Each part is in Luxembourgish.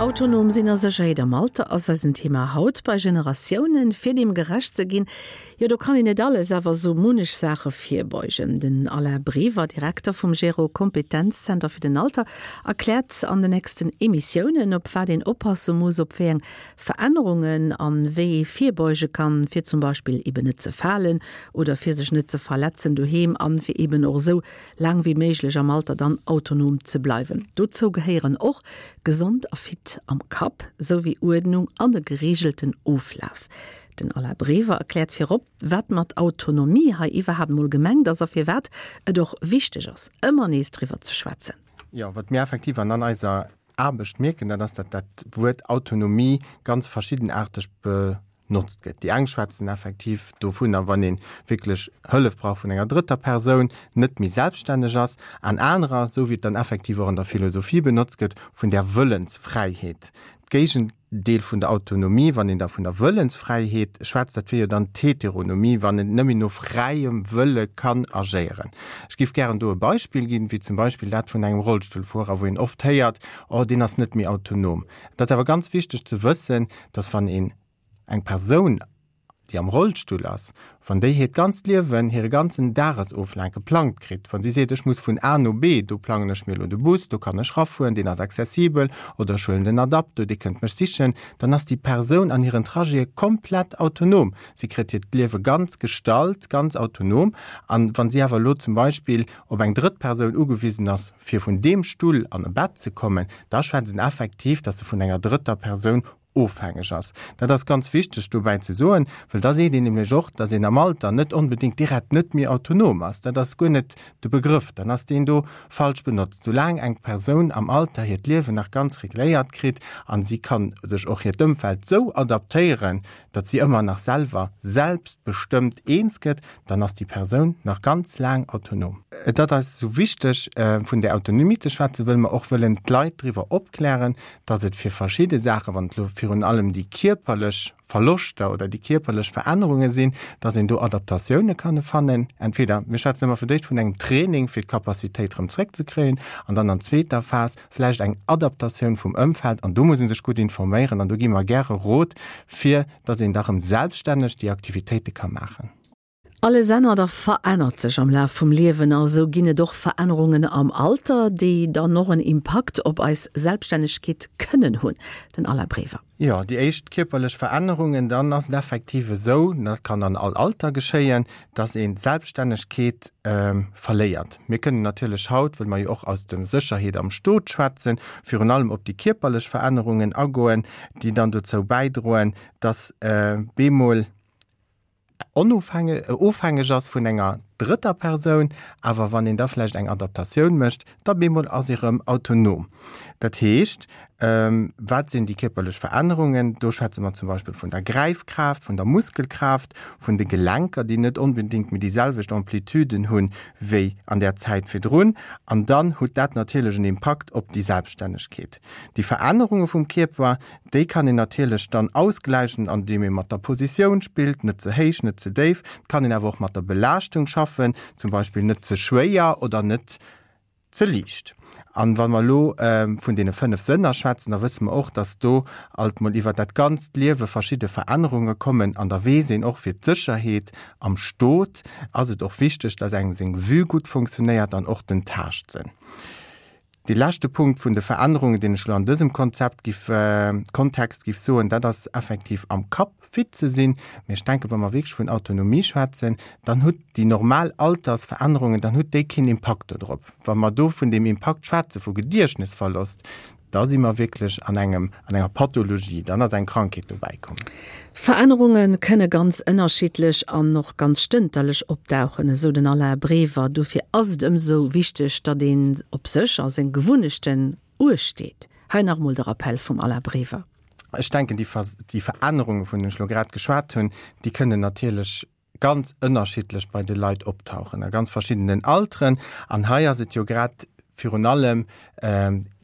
Autonom sinn a Sécherheet am Alter ass eisen Thema haut bei Generatiounen. Fir deem gerecht ze ginn, jo do kann een net alles, awer sou munnech Saache virbeugen. Den Alain Brever, Direkter vum Gero Kompetenzzenter fir den Alter, erkläert an de nächsten Emissiounen, op wat een oppasse muss, op wéi eng Verännerungen an wéi ee virbeuge kann, fir zum Beispill eben net ze falen oder fir sech net ze verletzen doheem an fir eben och esou laang wéi méiglech am Alter dann autonom ze bleiwen. Dozou gehéieren och gesond a fit am Kapp, sou wéi Uerdnung an e gereegelten Oflaf. Den Alain Brever erkläert virop, wat mat Autonomie hei iwwerhaapt mol gemengt ass a firwat et och wichteg ass, ëmmer nees driwwer ze schwätzen. Jo, wat mir effektiv an an eiser Aarbecht mierken, dat ass, datt dat Wuert Autonomie ganz verschiddenaarteg benotzt gëtt. Déi eng schwätzen effektiv dovunner, wann ee wierklech Hëllef brauch vun enger drëtter Persoun, net méi selbststänneg ass, an anerer, esou wéi et dann effektiv och an der Philosophie benotzt gëtt, vun där Wëllensfräiheet. D'Géigendeel vun der Autonomie, wann een da vun der Wëllensfräiheet schwätzt, dat wier jo dann d'Heteronomie, wann en nëmme no fräiem Wëlle kann agéieren. Ech géif gären do e Beispill ginn, wéi zum Beispill dat vun engem Rollstullfuerer, wou een oft héiert, Oh, deen ass net méi autonom. Et ass awer ganz wichteg ze wëssen, dass wann een eng Persoun, déi am Rollstull ass, wann déi hiert ganzt Liewen, hire ganzen Dagesoflaf geplangt kritt, wa si seet, ech muss vun A no B, do plangen ech mir elo de Bus, do kann ech rafueren, deen ass accessibel, oder ech huelen den Adapto, dee kënnt mech sichen, dann ass déi Persoun an hiren Trajete komplett autonom. Si kritt hiert Liewe ganz gestalt, ganz autonom. An wa si awer elo zum Beispill op eng drëtt Persoun ugewisen ass, fir vun deem Stull an e Bett ze kommen, da schwätzt en effektiv, datt se vun enger drëtter Persoun ofhängeg ass. Dat ass ganz wichteg dobäi ze soen, well da seet een nämlech och, datt een am Alter net onbedéngt direkt net méi autonom ass. Dat ass guer net de Begrëff, dann ass deen do falsch benotzt. Soulaang eng Persoun am Alter hiert Liewen nach ganz regléiert kritt a si ka sech och hiert Ëmfeld sou adaptéieren, datt si ëmmer nach selwer selbstbestëmmt eens gëtt, dann ass déi Persoun nach ganz laang autonom. Et ass eis esou wichteg, vun där Autonomie ze schwätzen, wëll mer och wëllen d'Leit driwwer opklären, dass et fir verschidde Saachen, wann et elo virun allem déi kierperlech Verloschter oder déi kierperlech Verännerunge sinn, dass een do Adaptatioune kann fannen. Entweder, mir schwätzen ëmmer fir d'éischt vun engem Training, fir d'Capacitéit erëm zréckzekréien, an dann an zweeter Phas vläicht eng Adaptatioun vum Ëmfeld. An do muss ee sech gutt informéieren an do gi mer gäre Rot, fir dass een da rëm selbststänneg déi Aktivitéite ka maachen. Alles ännert a verännert sech am Laf vum Liewen a sou ginn et och Verännerungen am Alter, déi dann och en Impakt op eis Selbststännegkeet kënnen hunn. Den Alain Brever. Jo, déi éischt kierperlech Verännerungen, dann ass et effektiv esou, dat kann an all Alter geschéien, dass een d'Selbststännegkeet verléiert. Mir kënnen natierlech haut, wëll mer jo och aus dem Sécherheet am Stot schwätzen, virun allem op déi kierperlech Verännerungen agoen, déi dann dozou bäidroen, dass bemol ofhängeg ass vun enger drëtter Persoun, awer wann een da vläicht eng Adaptatioun mécht, da bemol ass ee rëm autonom. Dat heescht, wat sinn déi kierperlech Verännerungen? Do schwätze mer zum Beispill vun der Gräifkraaft, vun der Muskelkraaft, vun de Gelenker, déi net onbedéngt méi déi selwecht Amplituden hunn wéi an där Zäit virdrun. An dann hutt dat natierlech en Impakt op déi Selbststännegkeet. Déi Verännerunge vum Kierper, déi kann een natierlech dann ausgläichen, andeem ee mat der Positioun spillt, net ze héich, net ze déif. Et kann een awer och mat der Belaaschtung schaffen, zum Beispill net ze schwéier oder net ze liicht. An wa mer elo vun deene 5 Sënner schwätzen, da wësse mer och, dass do alt mol iwwer dat ganzt Liewe verschidde Verännerunge kommen. An da weess een och, fir d'Sécherheet am Stot ass et och wichteg, dass engem seng Vue gutt funktionéiert an och den Taaschtsënn. Dee leschte Punkt vun de Verännerungen, deen ech elo an dësem Konzept giff, Kontext giff soen, dat ass effektiv am Kapp fit ze sinn. Mee ech denken, wa mer wierklech vun Autonomie schwätzen, dann hutt déi normal Altersverännerungen, dann hutt déi keen Impakt dodrop. Wa mer do vun deem Impakt schwätze vu Gediechtnesverlost, da si mer wierklech an engem, an enger Pathologie, dann ass eng Krankheet dobäi komm. Verännerunge kënne ganz ënnerschiddlech an och ganz stënterlech opdauchen, esou den Alain Brever. Dofir ass et ëmsou wichteg, datt een op sech a seng Gewunnechten uecht deet. Hei nach emol de Rappell vum Alain Brever. Ech denken, déi Verännerunge vun deenen ech elo grad geschwat hunn, déi kënnen natierlech ganz ënnerschiddlech bei de Leit optauchen a ganz verschiddenen Alteren. An hei ass et jo grad virun allem.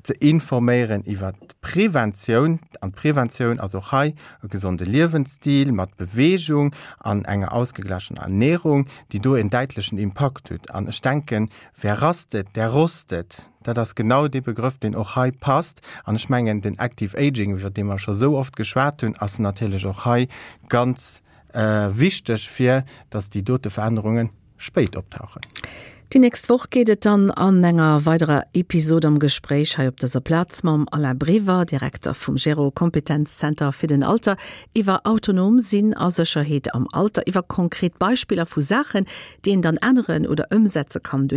ze informéieren iwwer d'Preventioun. An d'Preventioun ass och hei e gesonde Liewensstil mat Beweegung an enger ausgeglachener Ernährung, déi do en däitlechen Impakt huet. An ech denken, wer rastet, der rostet. Dat ass genau dee Begrëff, deen och hei passt. An ech mengen, den Active Aging, iwwer dee mer scho sou oft geschwat hunn, ass natierlech och hei ganz wichteg, fir datt déi dote Verännerunge spéit optauchen. Déi nächst Woch geet et dann an enger weiderer Episod am Gespréich hei op dëser Plaz mam Alain Brever, Direkter vum Gero Kompetenzzenter fir den Alter, iwwer autonom sinn a Sécherheet am Alter, iwwer konkret Beispiller vu Saachen, déi een dann änneren oder ëmsetze kann.